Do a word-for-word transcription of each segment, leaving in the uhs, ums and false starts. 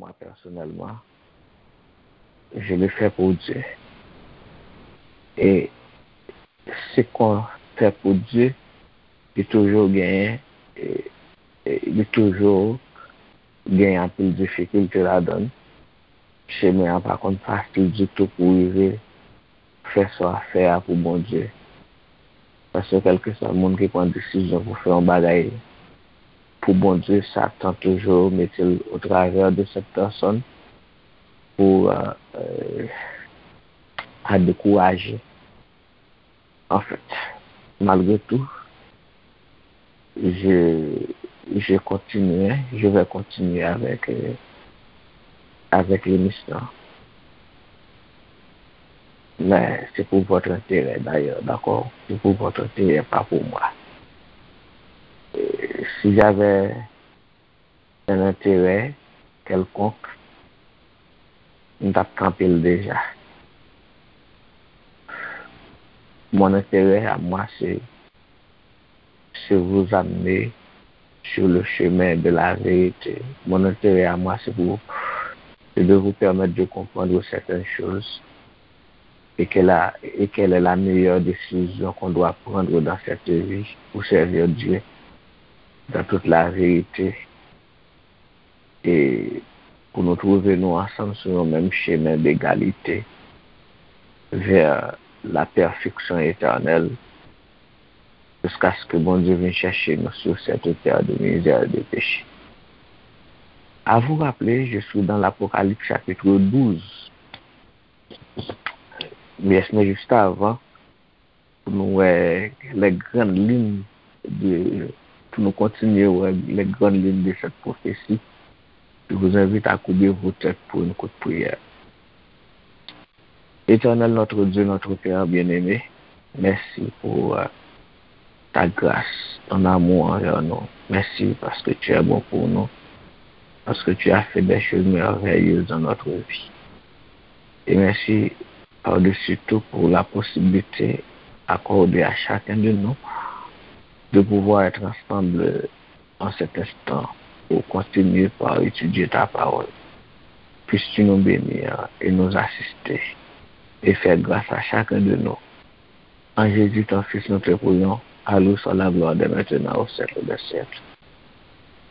Moi, personnellement, je le fais pour Dieu. E se kon fè pou Dye, li toujou genyen, e, e, li toujou genyen anpil difikilte ladan l. Chemen an pa konn fasil ditou pou rive fè sa w ap fè a pou Bondye. Paske kèlkeswa moun ki pran desizyon pou fè yon bagay pou Bondye, Satan toujou mete l au travers de cette personne pou, euh, euh, a dekouraje. En fait, malgré tout, je, je continue, je vais continuer avec, euh, avec l'émission. Mais c'est pour votre intérêt d'ailleurs, d'accord? C'est pour votre intérêt, pas pour moi. Euh, si j'avais un intérêt quelconque, m t ap kanpe l deja. Mon intérêt à moi, c'est, c'est vous amener sur le chemin de la vérité. Mon intérêt à moi, c'est pour, c'est de vous permettre de comprendre certaines choses et quelle, a- et quelle est la meilleure décision qu'on doit prendre dans cette vie pour servir Dieu dans toute la vérité. E pou nou twouve nou ansanm sou yon menm chemen degalite vers la perfection éternelle, jusqu'à ce que Bondye vin chèche nou sur cette terre de misère et de péché. À vous rappeler, je suis dans l'Apocalypse chapitre douze. Yes, men juste avant, pou nou wè les grandes lignes de, pou nou kontinye wè les grandes lignes de cette prophétie, je vous invite à courber vos têtes pour une courte prière. Éternel notre Dieu, notre Père bien-aimé, merci pour, euh, ta grâce, ton amour envers nous. Merci parce que tu es bon pour nous, parce que tu as fait des choses merveilleuses dans notre vie. Et merci par-dessus tout pour la possibilité accordée à chacun de nous de pouvoir être ensemble en cet instant pour continuer par étudier ta parole. Puisses-tu nous bénir et nous assister et faire grâce à chacun de nous. En Jésus, ton Fils, nous te prions. À lui soit la gloire dès maintenant, au siècle des siècles.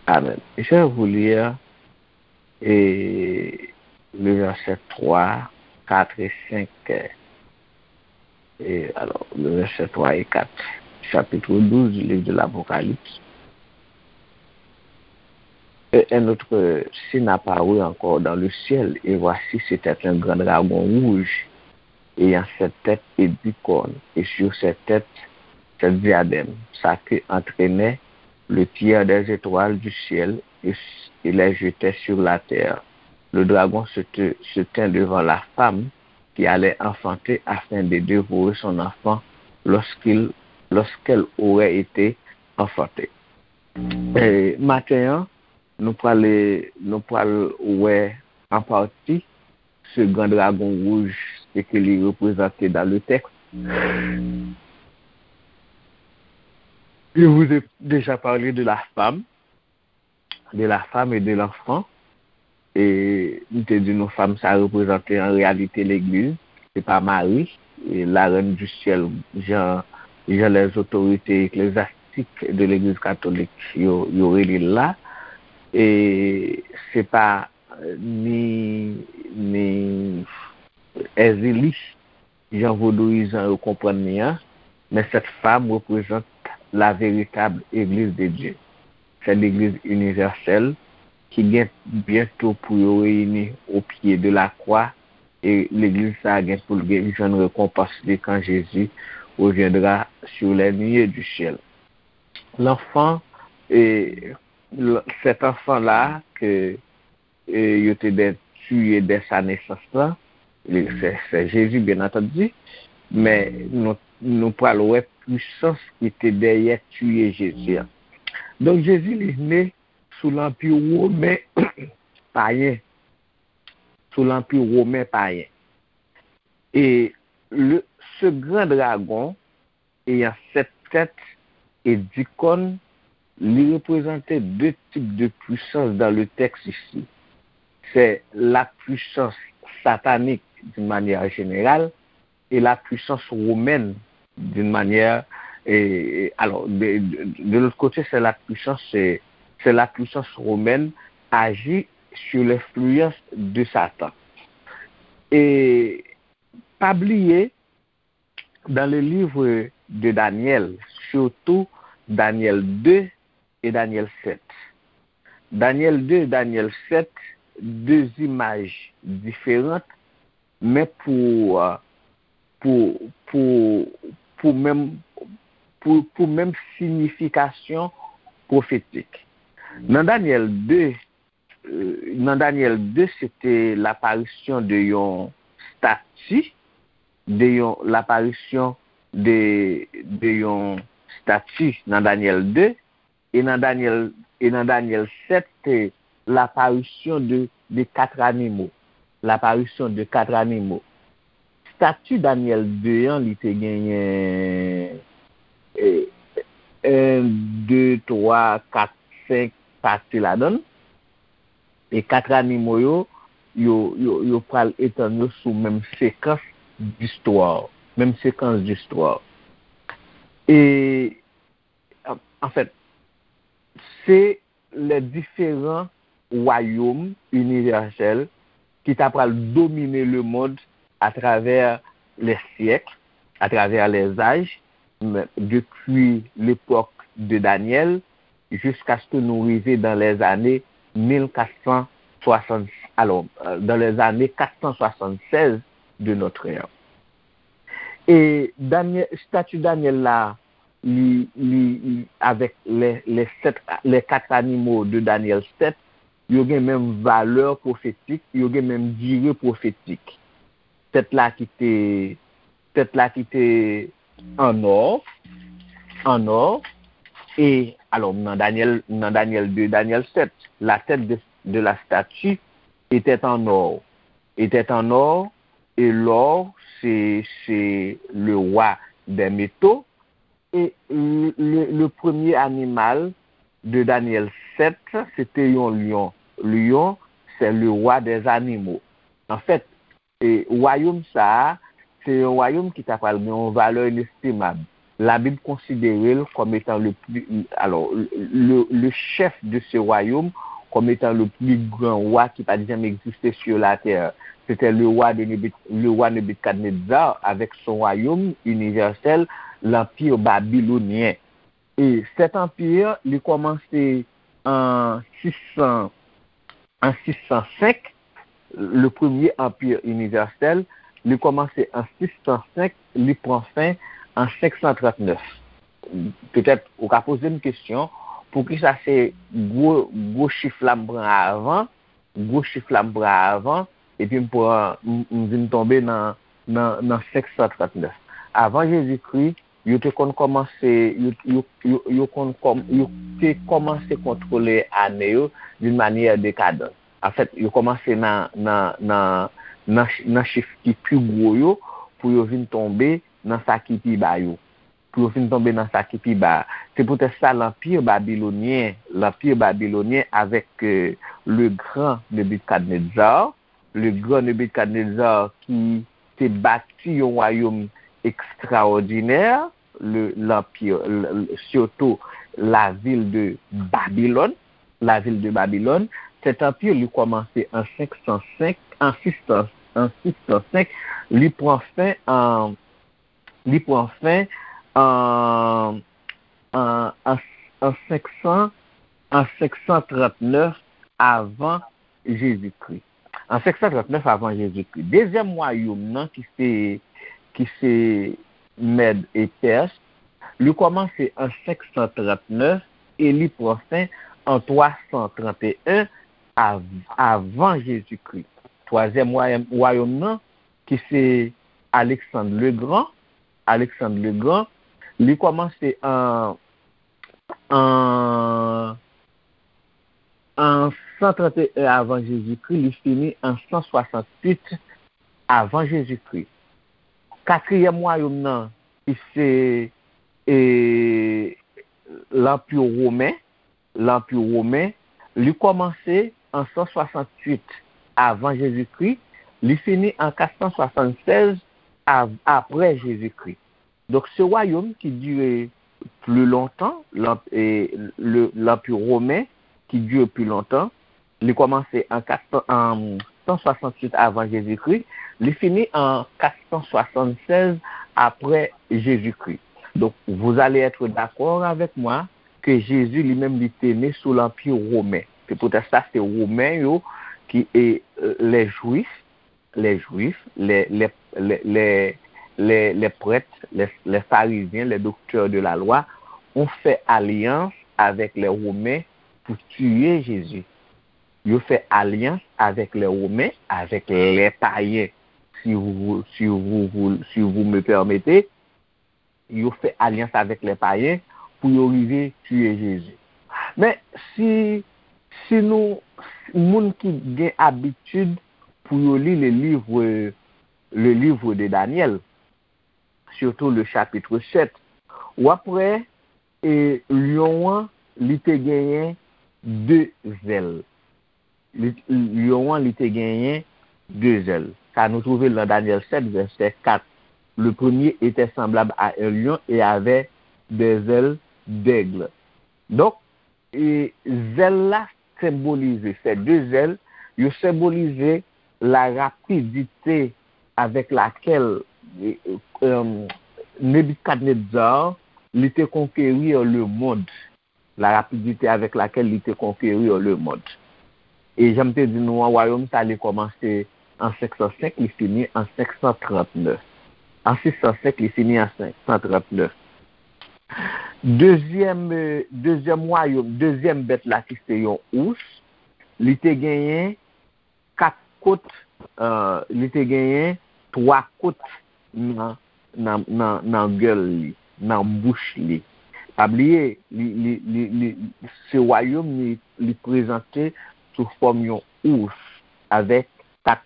Amen. Je vais vous lire et le verset trois, quatre et cinq. Et alors, le verset trois et quatre, chapitre douze du livre de l'Apocalypse. Et un autre signe apparut encore dans le ciel, et voici, c'était un grand dragon rouge, ayant sept têtes et dix cornes, et sur ses têtes, sept diadèmes. Sa queue entraînait le tiers des étoiles du ciel et, et les jetait sur la terre. Le dragon se, te- se tint devant la femme qui allait enfanter afin de dévorer son enfant lorsqu'il, lorsqu'elle aurait été enfantée. E maten an, nou pral, nou pral wè an pati ce grand dragon rouge, ce que li reprezante dans le texte. Je vous ai déjà parlé de la femme, de la femme et de l'enfant. E m te di nou fanm sa reprezante an reyalite legliz, se pa Mari, e la reine du ciel, jan, jan les autorités ecclésiastiques de l'église catholique yo, yo rele l la. E se pa ni, ni Èzili, jan vodouyizan yo konprann li an, mais cette femme représente la véritable Église de Dieu. C'est l'Église universelle ki gen byento pou yo reyini au pied de la croix, e legliz sa a gen pou l gen jwenn rekonpans li quand Jésus reviendra sur les nuées du ciel. L'enfant, e, l- cet enfant-là que e, yo te dwe tiye dè sa nesans lan, li- se, se Jezi, byen antandi, men nou, nou pral wè pwisans ki te dèyè tiye Jezi an. Donk, Jezi, li ne sou lanpi women payen, sou lanpi women payen. E le, ce grand dragon ayant sept têtes et dix cornes, li reprezante de tip de pwisans dans le texte ici. c'est la puissance satanique d'une manière générale et la puissance romaine d'une manière, et, et- alors, de, de- de l'autre côté, c'est la puissance, c'est, c'est la puissance romaine agit sur l'influence de Satan. Et pas oublier, dans le livre de Daniel, surtout Daniel deux et Daniel sept. Daniel deux et Daniel sept, deux images différentes, men pou, euh, pou, pou, pou menm, pou, pou menm siyifikasyon pwofetik. Nan Daniel deux, euh, nan Daniel deux, se te laparisyon de yon stati, de yon laparisyon de, de yon stati nan Daniel deux, e nan Daniel, e nan Daniel sept, se laparisyon de, de quatre animaux. Laparisyon de quatre animaux. Stati Daniel deux an, li te genyen, e, un, deux, trois, quatre, cinq pati ladan l. E quatre animaux yo, yo, yo, yo pral etann yo sou menm sekans d'histoire. Menm sekans d'histoire. E, an, an fèt, se les différents royaumes universels ki ta pral domine le monde à travers les siècles, à travers les âges, depi l'époque de Daniel jusqu'à ce que nous arrivions dans les années mille quatre cent soixante, alors, euh, dans les années quatre cent soixante-seize de notre ère. E Daniel, stati Daniel la, li, li, li, avec les, les sept, les quatre animaux de Daniel sept, yo gen menm valè pwofetik, yo gen menm dire pwofetik. Tèt la ki te, tèt la ki te an or, an or, e, alors, nan Daniel, nan Daniel deux, Daniel sept, la tête de, de la statue était en or, était en or, et l'or, c'est, c'est le roi des métaux. Et le, le, le premier animal de Daniel sept, c'était un lion. Lion, c'est le roi des animaux. En fait, e wayòm sa a, se yon wayòm ki ta pral gen yon valè inestimab. Labib konsidere l kòm etan le pli, alors, le, le chef de ce royaume, comme étant le plus grand roi qui pa t janm egziste sur la terre. C'était le roi de Nebuk-, le roi Nebukadnezar avec son royaume universel, l'empire babylonien. E cet empire, li kòmanse an sis san, an sis san senk, le premier empire universel, li kòmanse an sis san senk, li pran fen an senk san trant nèf. Petèt, ou ka poze m kesyon, poukisa se gwo, gwo chif la m pran avan, gwo chif la m pran avan, epi m pran, m, m vin tonbe nan, nan, nan senk san trant nèf. Avan Jezikri, yo te konn kòmanse, yo, yo, yo, yo konn kòm-, yo te kòmanse kontwole ane yo d'une manière décadente. Anfèt, yo kòmanse nan, nan, nan, nan ch-, nan chif ki pi gwo yo pou yo vin tonbe nan sa ki pi ba yo. Pou yo vin tonbe nan sa ki pi ba. Se poutèt sa, l'empire babylonien, l'empire babylonien avec, euh, le grand Nebuchadnezzar, le grand Nebuchadnezzar ki te bati yon wayòm ekstraòdinè, le, l'empire, le, le, surtout la ville de Babylone, la ville de Babylone. Cet empire, li kòmanse an senk san senk, an sis san, an sis san senk, li pran fen an, li pran fen an, an, an, an senk san, an senk san trant nèf avan Jezikri. An senk san trant nèf avan Jezikri. Dezyèm wayòm nan ki se, ki se Mèd e Pès, li kòmanse an senk san trant nèf e li pran fen an twa san trant e en av-, avan Jezikri. Twazyèm wayòm, wayòm nan, ki se Alexandre le Grand, Alexandre le Grand, li kòmanse an, an, an san trant e en avan Jezikri, li fini an san swasanntuit avan Jezikri. Katriyèm wayòm nan, ki se, e, Lanpi Women, Lanpi Women, li kòmanse an san swasanntuit avan Jezikri, li fini an kat san swasannsèz av- apre Jezikri. Donk, se wayòm ki dire pli lontan, lanp- e, le- Lanpi Women, ki dire pli lontan. Li kòmanse an kat san, an san swasantuit avan Jezikri, li fini an kat san swasannsèz apre Jezikri. Donk, vous allez être d'accord avec moi que Jésus lui-même, li te ne sou Lanpi Women. Se poutèt sa, se Women yo ki, e, les Juifs, les Juifs, les, les, les, les, les, les prêtres, les, les pharisiens, les docteurs de la loi ont fait alliance avec les Romains pour tuer Jésus. Yo fè alyans avèk lè Women, avèk lè payen, si vous, si vous, vous- si vous me permettez, yo fè alyans avèk lè payen pou yo rive tiye Jezi. Men si, si nou, moun ki gen abitid pou yo li le livre, le livre de Daniel, surtout le chapitre sept, w ap wè, e, lyon an, li te genyen de zèl. Li, lyon an, li te genyen de zèl. Sa nou twouve l nan Daniel sept, verset quatre. Le premier était semblable à un lion et avait des ailes d'aigle. Donk, e, zèl la senbolize, ces deux ailes, yo senbolize la rapidite avec laquelle, e, e, Nebikadnezar, li te conquérir le monde. La rapidité avec laquelle li te conquérir le monde. E jan m te di nou an, wayòm sa li kòmanse an senk san senk, li fini an senk san trant nèf. An sis san senk, li fini an senk san trant nèf. Dezyèm, e, dezyèm wayòm, dezyèm bèt la ki se yon ous, li te genyen kat kot, e, li te genyen twa kot nan, nan, nan, nan gèl li, nan bouch li. Pa bliye, li, li, li, li, se wayòm li, li prezante sou fòm yon ous avèk kat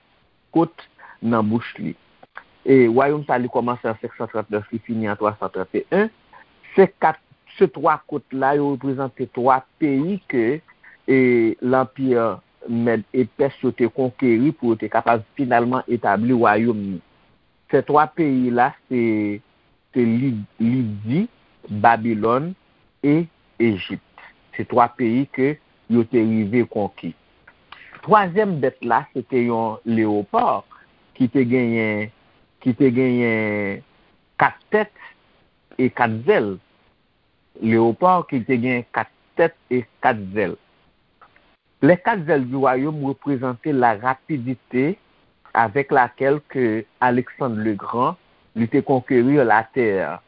kot nan bouch li. E wayòm sa li kòmanse an senk san trant nèf, li fini an twa san trant e en. Se kat, se twa kot la, yo reprezante twa peyi ke, e, lanpi Mèd e Pès yo te konkeri pou yo te kapab finalman etabli wayòm li. Se twa peyi la, se, se Li- Lidi, Babilòn e Ejip. Se twa peyi ke yo te rive konki. Twazyèm bèt la, se te yon leopar ki te genyen, ki te genyen kat tèt e kat zèl. Leopar ki te gen kat tèt e kat zèl. Les quatre ailes du royaume représentaient la rapidité avec laquelle que Alexandre le Grand li te conquérir la terre.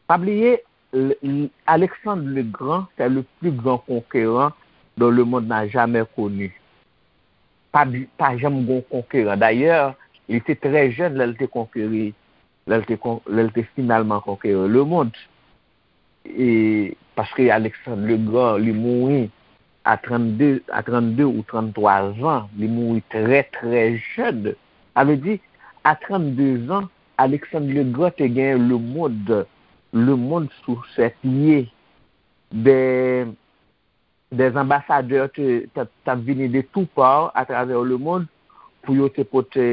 Pa bliye, l- l- Alexandre le Grand, c'est le plus grand conquérant dont le monde n'a jamais connu. Pa, bi- pa janm gon konkeran. Dayè, li te trè jèn lè l te konkeri, lè l te, kon- lè l te finalman konkeri le monde. E, paske Alexandre le Grand, li mouri a trannde, a trannde ou tranntwa zan, li mouri trè, trè jèn. Sa vle di, a trannde zan, Alexandre le Grand te genyen le monde, le monde sous ses pieds. Des, des ambassadeurs te, t ap, t ap vini de tout part à travers le monde pou yo te pote,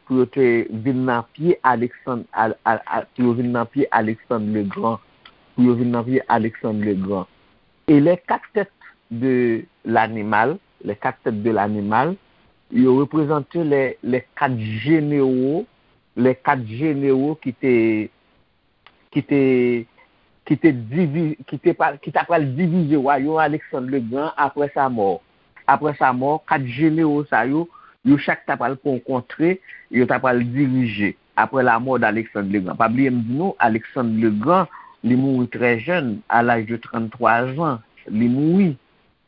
pou yo te vin nan pye Alexandre, al, al, al, pou yo vin nan pye Alexandre le Grand, pou yo vin nan pye Alexandre le Grand. Et les quatre têtes de l'animal, les quatre têtes de l'animal, yo reprezante les, les quatre généraux, les quatre généraux ki te, ki te, ki te divi- ki te pa- ki ta pral divize wayòm Alexandre le Grand après sa mort. Après sa mort, kat jenewo sa yo, yo chak ta pral pran yon kontre, yo ta pral dirije après la mort d'Alexandre le Grand. Pa bliye m di nou, Alexandre le Grand, li mouri trè jèn, à l'âge de trannde-twa zan, li mouri.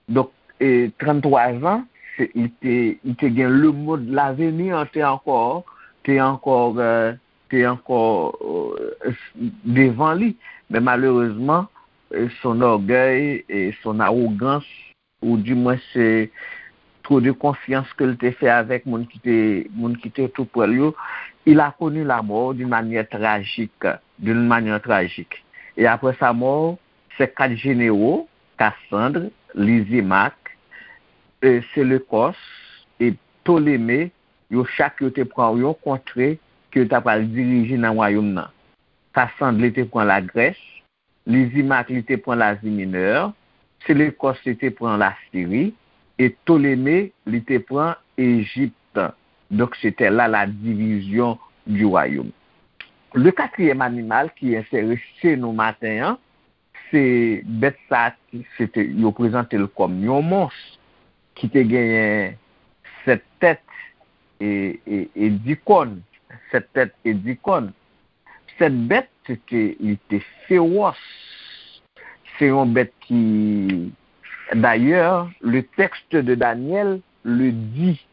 Donk, e, trannde-twa zan, se, li te, li te gen le monde, l'avenir te ankò, te ankò, e, te ankò, e, devan li. Men malerezman, e, son orgueil et son arrogance, ou du moins se trop de confiance ke l te fè avèk moun ki te, moun ki te tou prè l yo, il a connu la mort d'une manière tragique, d'une manière tragique. Et après sa mort, ses quatre généraux, Cassandre, Lysimaque, e, Séleucos, e, Ptoleme, yo chak yo te pran yon kontre ke yo ta pral dirije nan wayòm nan. Kasandle te pran Lagrès, Lizimak li te pran Lazi Minè, Selekòs li te pran Lasiri, e Ptoleme li te pran Ejip. Donk, se te la la division du royaume. Le quatrième animal ki enterese nou maten an, se bèt sa ki se te, yo prezante l kòm yon mons ki te genyen sèt tèt e, e, e di kòn. Sèt tèt e di kòn. Sèt bèt, se te, li te fewòs. Se yon bèt ki, d'ailleurs, le texte de Daniel le dit.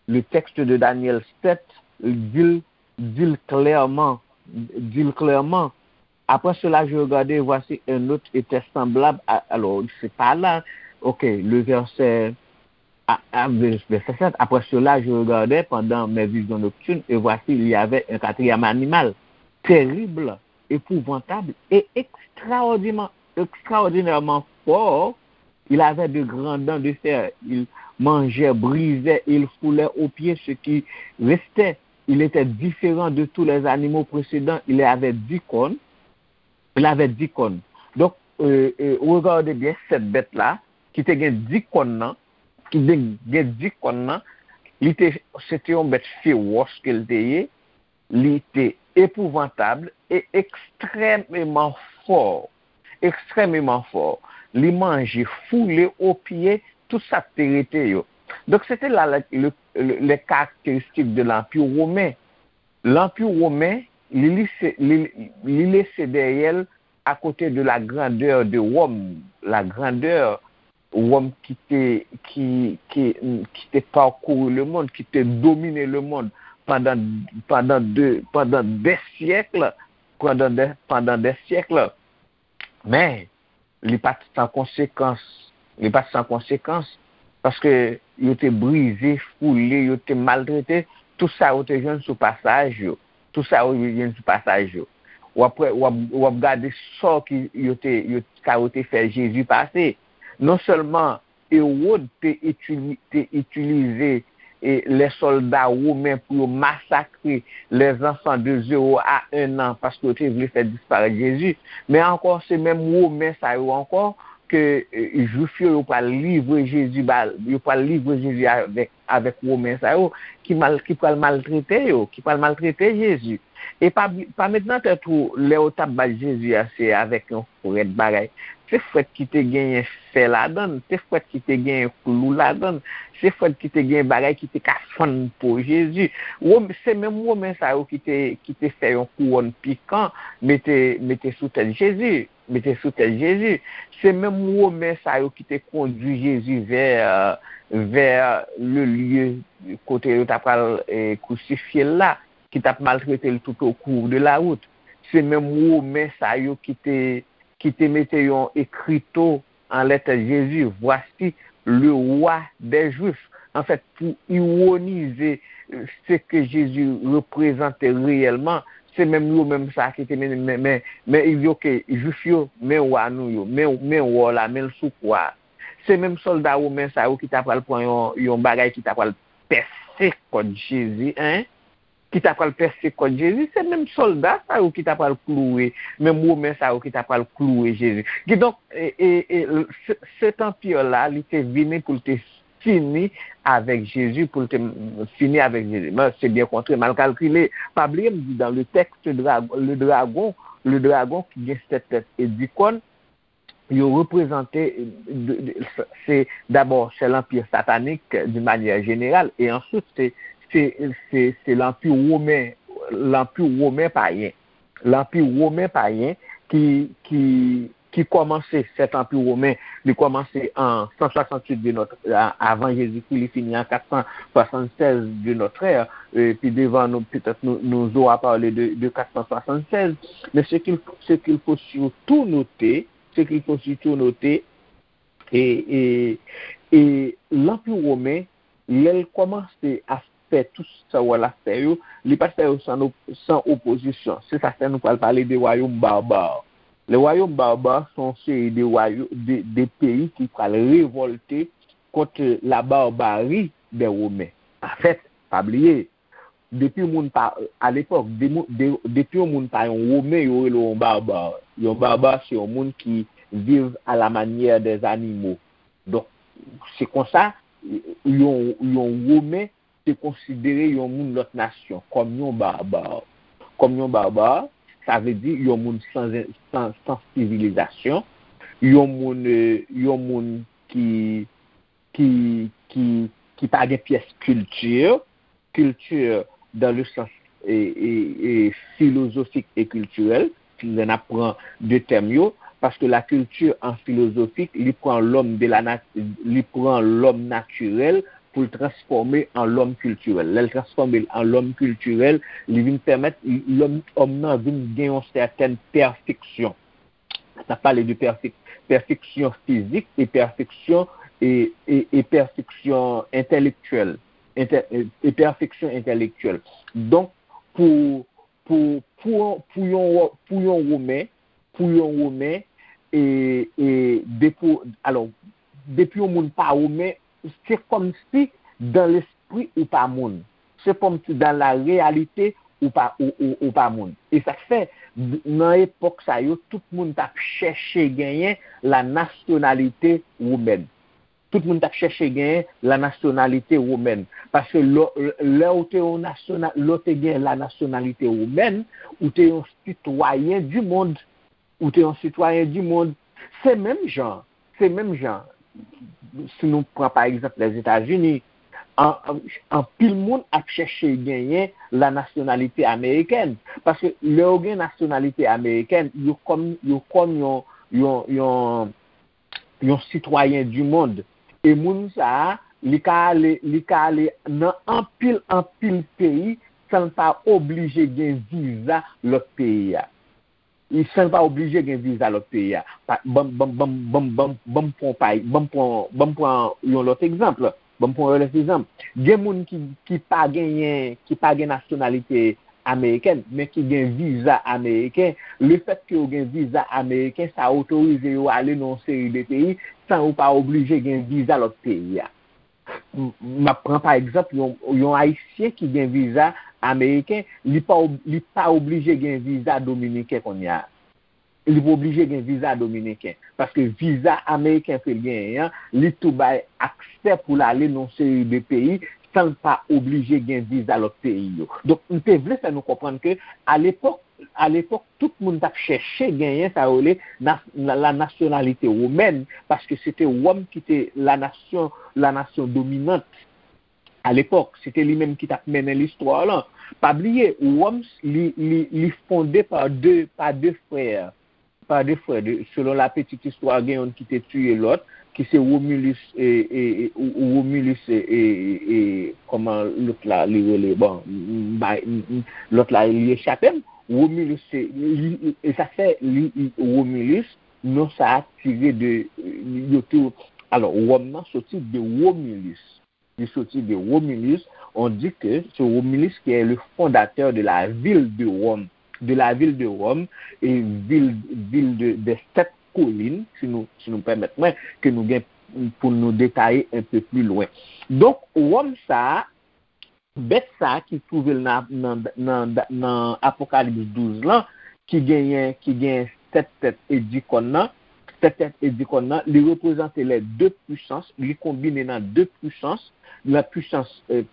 Le texte de Daniel sept di l, di l klèman, di l klèman. Après cela, je regardai, et voici un autre était semblable à, alors, c'est pas là, ok, le verset, à, à, verset sept. Après cela, je regardai pendant mes visions nocturnes, et voici, il y avait un quatrième animal, terrible, épouvantable et extraordinairement, extraordinairement fort. Il avait de grandes dents de fer. Il mangeait, brisait, il foulait aux pieds ce qui restait. Il était différent de tous les animaux précédents. Il avait dix cornes. Il avait dix cornes. Donk, euh, euh, regardez bien sèt bèt la, ki te gen di kòn nan, ki te gen di kòn nan, li te, se te yon bèt fewòs ke l te ye, li te epouvantab e ekstrèmeman fò. Ekstrèmeman fò. Li manje foule o pye tout sa k te rete yo. Donk, se te la le, le, le, les caractéristiques de l'Empire romain. Lanpi women, li, li, se- li, li lese dèyè l à côté de la grandeur de Rome, la grandeur Rome qui te, qui, qui, qui te parcouru le monde, qui te dominé le monde pendant, pendant, de, pendant des siècles, pendant des, pendant des siècles. Men, li pa t san konsekans. Li pa t san konsekans, paske yo te brize, foule, yo te maltrete tout sa yo te jwenn sou pasaj yo. Tout sa yo jwenn sou pasaj yo. W ap, w ap, w ap gade sò ki yo te, yo, sa yo te fè Jezi pase. Non sèlman Ewòd te itili-, te itilize e lè sòlda women pou yo masakre les enfants de zéro à un an paske yo te vle fè disparèt Jezi. Men ankò, se menm women sa yo ankò ke e, jwif yo, yo pral livre Jezi ba, yo pral livre Jezi avèk, avèk women sa yo ki mal, ki pral maltrete yo, ki pral maltrete Jezi. E pa, pa met nan tèt ou, lè yo t ap bat Jezi a, se avèk yon frèt bagay. Se frèt ki te genyen fè ladan l, se frèt ki te genyen klou ladan l, se frèt ki te genyen bagay ki te ka fann po Jezi. Wom-, se menm women sa yo ki te, ki te fè yon kouwòn pikan mete, mete sou tèt Jezi, mete sou tèt Jezi. Se menm women sa yo ki te kondui Jezi vè, vè le lieu kote yo ta pral e, krusifye l la, ki t ap maltrete l tout au cours de la route. Se menm women sa yo ki te, ki te mete yon ekrito anlè tèt Jezi, Voici le roi des Juifs. Anfèt, pou iwonize se ke Jezi reprezante reyèlman, se menm yo menm sa ki te mennen, men, men, men, yo ke Jwif yo, men wa nou yo, men, men wò la, men l sou kwa. Se menm sòlda women sa yo ki ta pral pran yon, yon bagay ki ta pral pèse kòt Jezi, en, ki ta pral pèse kòt Jezi, se menm sòlda sa yo ki ta pral klouwe, menm women sa yo ki ta pral klouwe Jezi. Kidonk, e, e, e, se, set anpi la, li te vini pou l te fini avèk Jezi, pou l te fini avèk Jezi. Men se byen kontre, mal kalkile. Pa bliye, m di dans le texte, dragon, le dragon, le dragon ki gen sèt tèt e di kòn, yo reprezante, de, de, se dabò, se lanpi satanik d'une manière générale, e answit, se, se, se, se lanpi women, lanpi women payen. Lanpi women payen ki, ki, ki kòmanse, sèt anpi women, li kòmanse an san swasanntuit de notre, a-, avan Jezikri, li fini an kat san swasannsèz de notre ère. E pi devan, nou, petèt, nou, nous aura parlé de, de quatre cent soixante-seize. Mais ce qu'il, ce qu'il faut surtout noter, ce qu'il faut surtout noter, e, e, e lanpi women, lè l kòmanse ap fè tout sa w wè l ap fè yo, li pa t fè yo san op-, san opozisyon. Se sa k fè nou pral pale de wayòm baba. Le wayòm baba se yon seri de wayò-, de, de peyi ki pral revòlte kont la barbari dè Women. pa fèt, pa bliye. Depi yon moun pa, alepòk, depi yon moun pa yon Women, yo rele yon barbar. Yon barbar, se yon moun ki viv alamanyè dèzanimo. Donk, se konsa, yon, yon Women te konsidere yon moun lòt nasyon kòm yon barbar. Kòm yon barbar, sa vle di yon moun san, san, san sivilizasyon, yon moun, yon moun ki, ki, ki, ki pa gen pyès kilti, kilti dans le sens e, e, e filozofik e kiltirèl, lè n ap pran de tèm yo, paske la culture en philosophique, li pran lòm de la nat, li pran lòm natirèl pou l transfòme an lòm kiltirèl. Lè l transfòme l an lòm kiltirèl, li vin pèmèt lòm, òm nan vin gen yon sètèn pèfeksyon. N ap pale de pèfek, pèfeksyon fizik e pèfeksyon e, e, e pèfeksyon entèlektyèl, entè, e, e pèfeksyon entèlektyèl. Donk, pou, pou, pou, pou yon, pou yon Women, pou yon Women, e, e depi, alò, depi yon moun pa Women, se kòm si dan lespri ou pa moun. Se kòm si dan la reyalite ou pa, ou, ou, ou pa moun. E sa k fè, nan epòk sa yo, tout moun t ap chèche genyen la nasyonalite womèn. Tout moun t ap chèche genyen la nasyonalite womèn. Paske lè, lè ou te yon nasyona, lè ou te gen la nasyonalite womèn, ou te yon sitwayen di mond. Ou te yon sitwayen di mond. Se menm jan, se menm jan, si nou pran pa egzanp Lèzetazini, an, an, anpil moun ap chèche genyen la nasyonalite amerikèn. Paske lè yo gen nasyonalite amerikèn, yo kòm, yo kòm yon, yon, yon, yon sitwayen di mond. E moun sa a, li ka ale, li ka ale nan anpil, anpil peyi san l pa oblije gen viza lòt peyi a. Li san l pa oblije gen viza lòt peyi a. Pa, ban, ban, ban, ban, ban, ban m pran pa, ban m pran, ban m pran yon lòt egzanp. Ban m pran yon lòt egzanp. Gen moun ki, ki pa genyen, ki pa gen nasyonalite amerikèn, men ki gen viza ameriken. Lefètke yo gen viza ameriken, sa otorize yo ale nan yon seri de peyi san yo pa oblije gen viza lòt peyi a. M, m ap pran pa egzanp yon, yon Ayisyen ki gen viza ameriken, li pa ob, li pa oblije gen viza dominiken kounye a. Li pa oblije gen viza dominiken. Paske viza ameriken ke l genyen an, li tou bay aksè pou l ale nan yon seri de peyi san l pa oblije gen viza lòt peyi yo. Donk, m te vle fè nou konprann ke alepòk, alepòk, tout moun t ap chèche genyen sa yo rele nas, la, la nasyonalite womèn, paske se te Wòm ki te la nasyon, la nasyon dominant. Alepòk, se te li menm ki t ap mennen listwa lan. Pa bliye, Wòm, li, li, li fonde pa de, pa de frè. Pa de frè. De, selon la petite histoire, gen youn ki te tiye lòt, ki se Romulus, e, e, e, ou, ou Romulus, e, e, e, e, kòman lòt la, li rele, bon, m, m, bay, m, m, lòt la, li echape m. Romulus, se, li, e sa fè, li, li, Romulus, non sa a tire de, yo te, alò, Wòm nan soti de Romulus. Li soti de Romulus. On dit que c'est Romulus qui est le fondateur de la ville de Rome, de la ville de Rome, et ville, ville de, des sept collines, si nou, si nou pèmèt mwen, ke nou gen pou nou detaye un peu plus loin. Donk, Wòm sa a, bèt sa a ki twouve l nan, nan, nan, nan Apokalips douz lan, ki genyen, ki genyen sèt tèt e dis kòn nan, sèt tèt e dis kòn nan, li reprezante les deux puissances, li konbine nan de pwisans, la puissance, euh,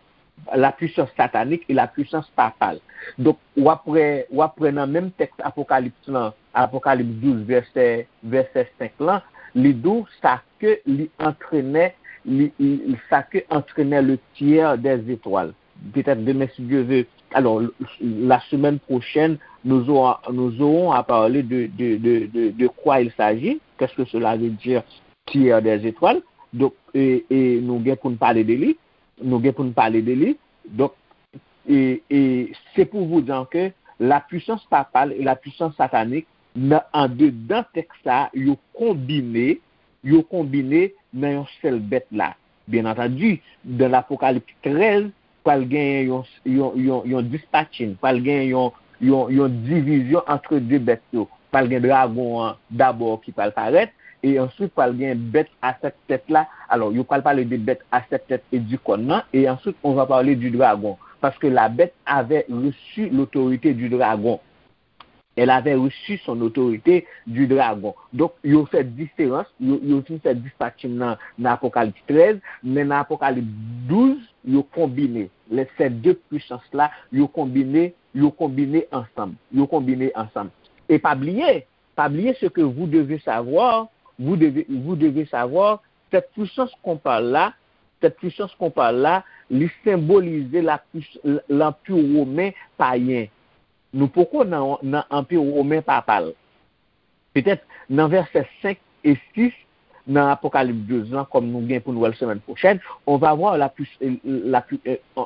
la puissance satanique et la puissance papale. Donk, w ap wè, w ap wè nan menm tèks Apokalips lan, Apokalips douz, vèsè, vèsè senk lan, li di w sa ke li antrenè, li, li, sa ke antrenè le tiers des étoiles. Peut-être demain, si Dieu veut. Alors, la semaine prochaine, nous aurons, nous aurons à parler de, de, de, de, de quoi il s'agit, qu'est-ce que cela veut dire, tiers des étoiles. Donk, e, e nou gen pou n pale de li, nou gen pou n pale de li. Donk, e, e c'est pour vous dire que la puissance papale et la puissance satanique, nan, andedan tèks sa a, yo konbine, yo konbine nan yon sèl bèt la. Byen antandi, dan Lapokalips trèz, pral genyen yon, yon, yon, yon dispatching, pral genyen yon, yon, yon divizyon antre de bèt yo. Pral gen dragon an dabò ki pral parèt, E answit pral gen bèt a sèt tèt la. Alò, yo pral pale de bèt a sèt tèt e di kòn nan, e answit on va pale di dragon. Paske la bête avait reçu l'autorité du dragon. Elle avait reçu son autorité du dragon. Donk, yo fè diferans, yo, yo vin fè dispatching nan, nan Apokalips trèz, men nan Apokalips douz, yo konbine. Lè se de pwisans la, yo konbine, yo konbine ansanm. Yo konbine ansanm. E pa bliye, pas oublier ce que vous devez savoir, vous devez, vous devez savoir, cette puissance qu'on parle là, cette puissance qu'on parle là, li senbolize la pwis- lanpi women payen. Nou poko nan, nan anpi women papal. Petèt nan vèsè senk e sis nan Apokalips douz lan, kòm nou gen pou nou wè l semèn pwochèn, on va voir la pwis- la pwi- euh,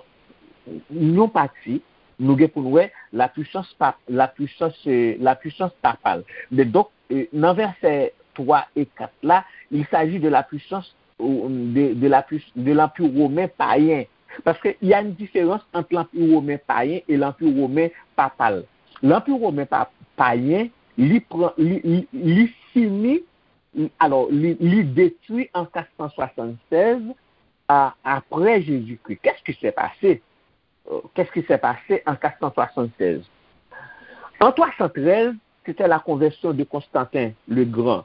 yon pati, nou gen pou nou wè la puissance pa la puissance euh, la puissance papale. Men donk, euh, nan vèsè twa e kat la, il s'agit de la puissance, euh, de, de la pwis- de lanpi women payen. Paske y a une différence entre lanpi women payen e lanpi women papal. Lanpi women pa, payen, li pran, li, li, li fini, alò, li, li detwi an kat san swasannsèz a, après Jésus-Christ. Qu'est-ce qui s'est passé? Euh, Qu'est-ce qui s'est passé en quatre cent soixante-seize? En trois cent treize, c'était la conversion de Constantin le Grand.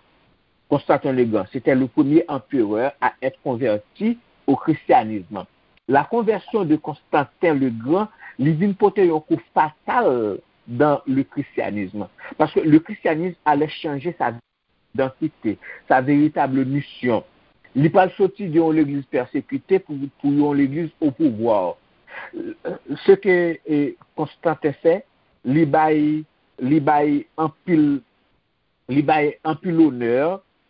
Constantin le Grand, c'était le premier empereur à être converti au christianisme. La conversion de Constantin le Grand, li vin pote yon kou fatal dans le christianisme. Parce que le christianisme allait changer sa identité, sa véritable mission. Li pral soti de yon legliz pèsekite pou, pou yon legliz o pouvwa. Se ke eh, Konstanten fè, li bay, li bay anpil, li bay anpil onè,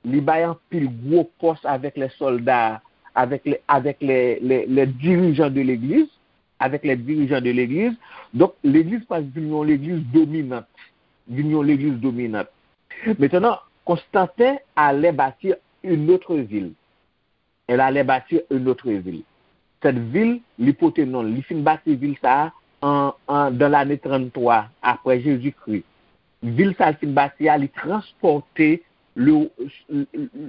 li bay anpil gwo pòs avèk lè sòlda, avèk lè, avèk lè, lè, lè dirijan de legliz, avèk lè dirijan de legliz. Donk, legliz pral vin yon legliz dominant, vin yon legliz dominant. Maintenant, Constantin allait bâtir une autre ville. Elle allait bâtir une autre ville. Cette ville, li pote non, li fin bati vil sa a en, en, dans l'année trente-trois après Jésus-Christ. Vil sa a li fin bati a, li transpòte le,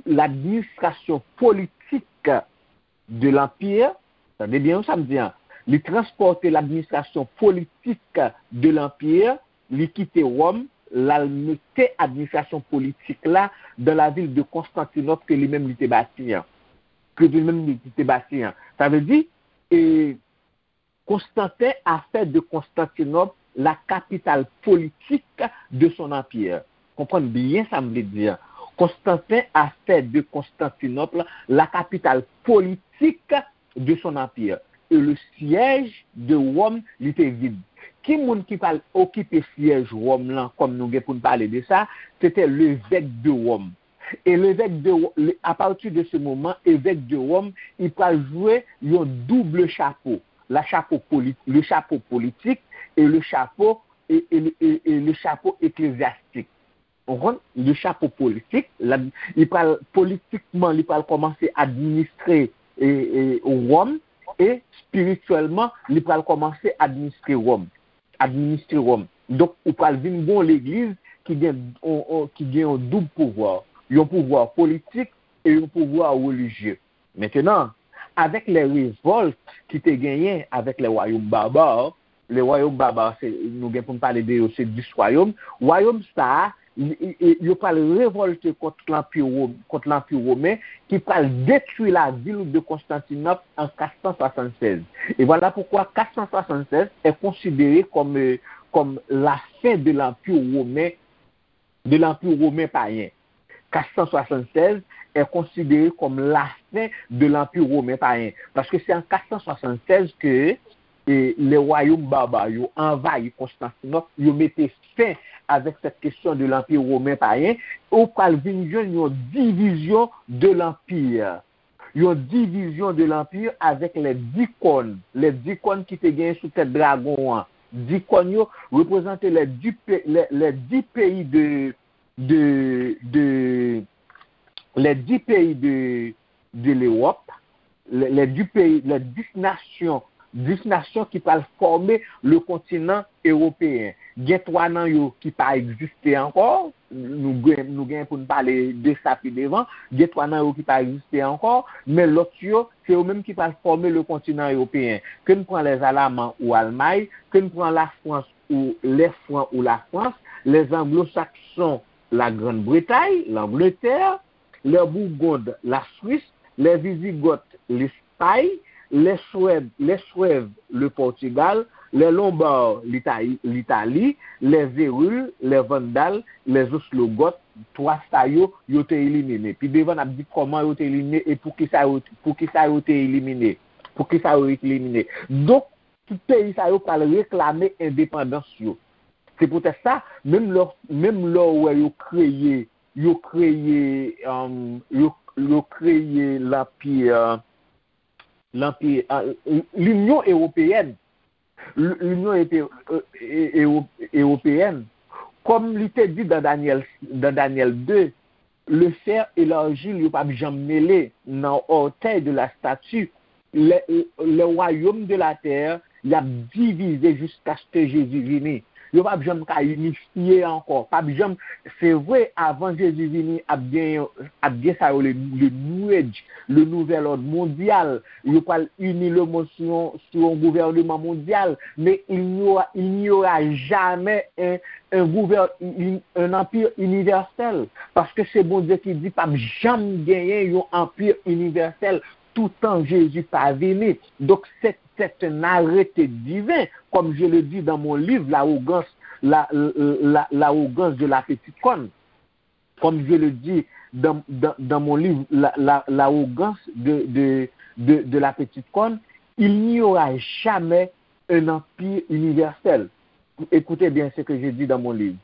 l'administration politique de l'Empire, tande byen sa m di an, li transpòte l'administration politique de l'Empire, li kite Wòm, l al mete administrasyon politik la dans la ville de Constantinople ke li menm li te bati an. Ke li menm li te bati an. Sa vle di, e, Constantin a fait de Constantinople la capitale politique de son empire. Konprann byen sa m vle di an. Constantin a fait de Constantinople la capitale politique de son empire. Et le siège de Rome li te vid. Ki moun ki pral okipe syèj Wòm lan, kòm nou gen pou n pale de sa, se te levèk de Wòm. E levèk de Wo- le- à partir de ce moment, évêque de Rome, li pral jwe yon double chapeau. La chapeau poli- le chapeau politique et le chapeau et, et, et, et le chapeau ecclésiastique. Ou konprann? Le chapeau politique, la, li pral politikman, li pral kòmanse administre e, e, Wòm, e spirityèlman, li pral kòmanse administre Wòm. Administre Wòm. Donk, ou pral vin gon legliz ki gen, on, on, ki gen yon doub pouvwa. Yon pouvwa politik e yon pouvwa relijye. Maintenant, avec les révoltes ki te genyen avec les royaumes barbares, les royaumes barbares, se, nou gen pou n pale de yo, se dis wayòm. Wayòm sa a, li- e- e- yo pral revòlte kont lanpi Wòm, kont lanpi women, ki pral detwi la ville de Constantinople en quatre cent soixante-seize. Et voilà pourquoi quatre cent soixante-seize est considéré comme, euh, comme la fin de l'Empire romain, de l'Empire romain païen. Quatre cent soixante-seize est considéré comme la fin de l'Empire romain païen. Paske se an quatre cent soixante-seize ke e, le wayòm baba yo anvayi Konstantinòp, yo mete fen avèk cette question de l'Empire romain païen, ou pral vin jwenn yon divizyon de l'Empire. Yon divizyon de l'Empire avèk les dix cornes. Les dix cornes ki te genyen sou tèt dragon an. Dix cornes yo reprezante les dix, pe- les, les dix pays de, de, de, les dix pays de, de l'Europe, les, les dix pays, les dix nations, dix nations ki pral fòme le kontinan ewopeyen. Gen twa nan yo ki pa egziste ankò. Nou gen, nou gen pou n pale de sa pi devan. Gen twa nan yo ki pa egziste ankò, men lòt yo, se yo menm ki pral fòme le kontinan ewopeyen. Ke n pran les Alamans ou Almay, ke n pran Lafrans ou les Francs ou Lafrans, les Anglo-Saxons, la Grande Bretagne, l'Angleterre, les Burgondes, la Suisse, les Visigoths, l'Espagne, les Suèves, les Suèves, le Portugal, les Lombards, l'Italie, l'Italie, les Hérules, les Vandales, les Ostrogoths, twa sa yo, yo te elimine. Pi devan, n ap di kòman yo te elimine e poukisa yo, poukisa yo te elimine. Poukisa yo elimine. Donk, tout peyi sa yo pral reklame endepandans yo. Se poutèt sa, menm lè, menm lè w wè yo kreye, yo kreye, um, yo, yo kreye lanpi, lanpi, uh, Linyon Ewopeyèn, L- Linyon Epe- e- e- Ewo- Ewopeyèn, kòm li te di dans Daniel, dans Daniel deux, le fer et l'argile, yo p ap janm mele nan ortèy de la statue. Le, le royaume de la terre, y ap divize jiskaske Jezi vini. Yo p ap janm ka inifye ankò. P ap janm, se vre, avan Jezi vini, ap gen, ap gen sa yo le, le New Age, le nouvel ordre mondial. Yo pral ini lemonn sou yon, sou yon gouvènman mondyal. Men il n'y aura, il n'y aura jamais un, un, gouvè- un, un empire universel. Paske se Bondye ki di p ap janm genyen yon anpi inivèsèl toutan Jezi pa vini. Donc, c'est, c'est un arrêté divin, comme je le dis dans mon livre, L'arrogance, la, la, l'arrogance de la petite corne. Comme je le dis dans, dans, dans mon livre, la, la, L'arrogance de, de, de, de la petite corne, il n'y aura jamais un empire universel. Écoutez bien ce que je dis dans mon livre.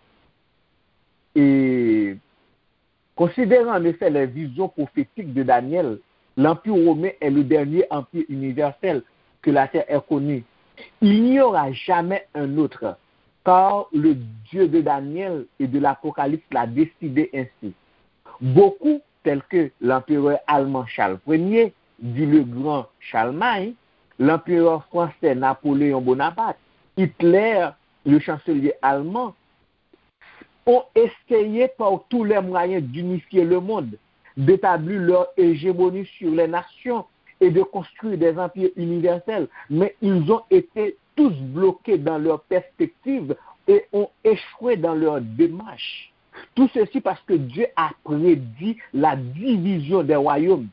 Et considérant en effet les visions prophétiques de Daniel, l'Empire romain est le dernier empire universel que la terre ait connu. Il n'y aura jamais un autre, car le Dieu de Daniel et de l'Apocalypse l'a décidé ainsi. Beaucoup, tels que l'empereur allemand Charles premier, dit le grand Charlemagne, l'empereur français Napoléon Bonaparte, Hitler, le chancelier allemand, ont essayé par tous les moyens d'unifier le monde, d'établir leur hégémonie sur les nations et de construire des empires universels, mais ils ont été tous bloqués dans leur perspective et ont échoué dans leur démarche. Tout ceci parce que Dieu a prédit la division des royaumes.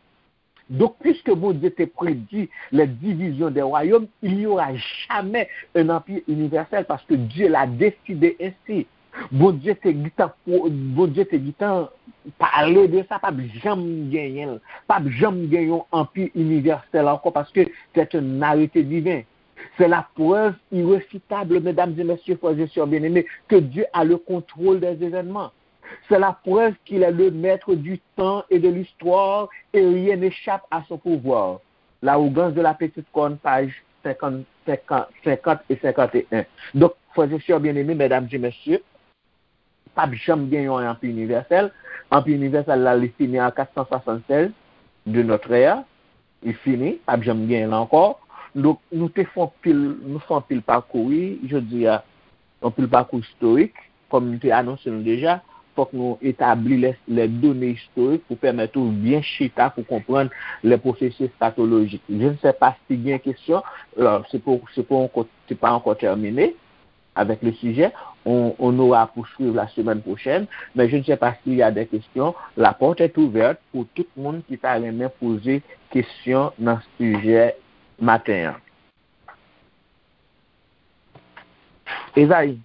Donc, puisque Bondye te prédit les divisions des royaumes, il n'y aura jamais un empire universel parce que Dieu l'a décidé ainsi. Bondye te gentan, Bondye te gentan pale de sa, p ap janm genyen l. P ap janm gen yon anpi inivèsèl ankò, paske c'est un arrêté divin. C'est la preuve irréfutable, mesdames et messieurs, frères et sœurs bien-aimés, que Dieu a le contrôle des événements. C'est la preuve qu'il est le maître du temps et de l'histoire et rien n'échappe à son pouvoir. L'arrogance de la petite corne, page cinquante, cinquante, cinquante et cinquante et un. Donk, frè e sè byeneme, medam e mesye, p ap janm gen yon anpi inivèsèl. Anpi inivèsèl la, li fini an kat san swasannsèz de notre ère. Li fini, p ap janm genyen l ankò. Donk, nou te fè anpil, nou fè anpil pakou, wi, jodi a, anpil pakou istorik, kòm m te anonse nou deja, fòk nou etabli les, les données historiques pou pèmèt ou byen chita pou konprann les processus eschatologiques. Je ne sais pas si gen kesyon, alors, c'est pas, c'est pas encore, c'est pas encore terminé avec le sujet. On, on aura à poursuivre la semaine prochaine, mais je ne sais pas s'il y a des questions. La porte est ouverte pour tout moun ki ta renmen poze kesyon nan sijè maten an. Ezayi,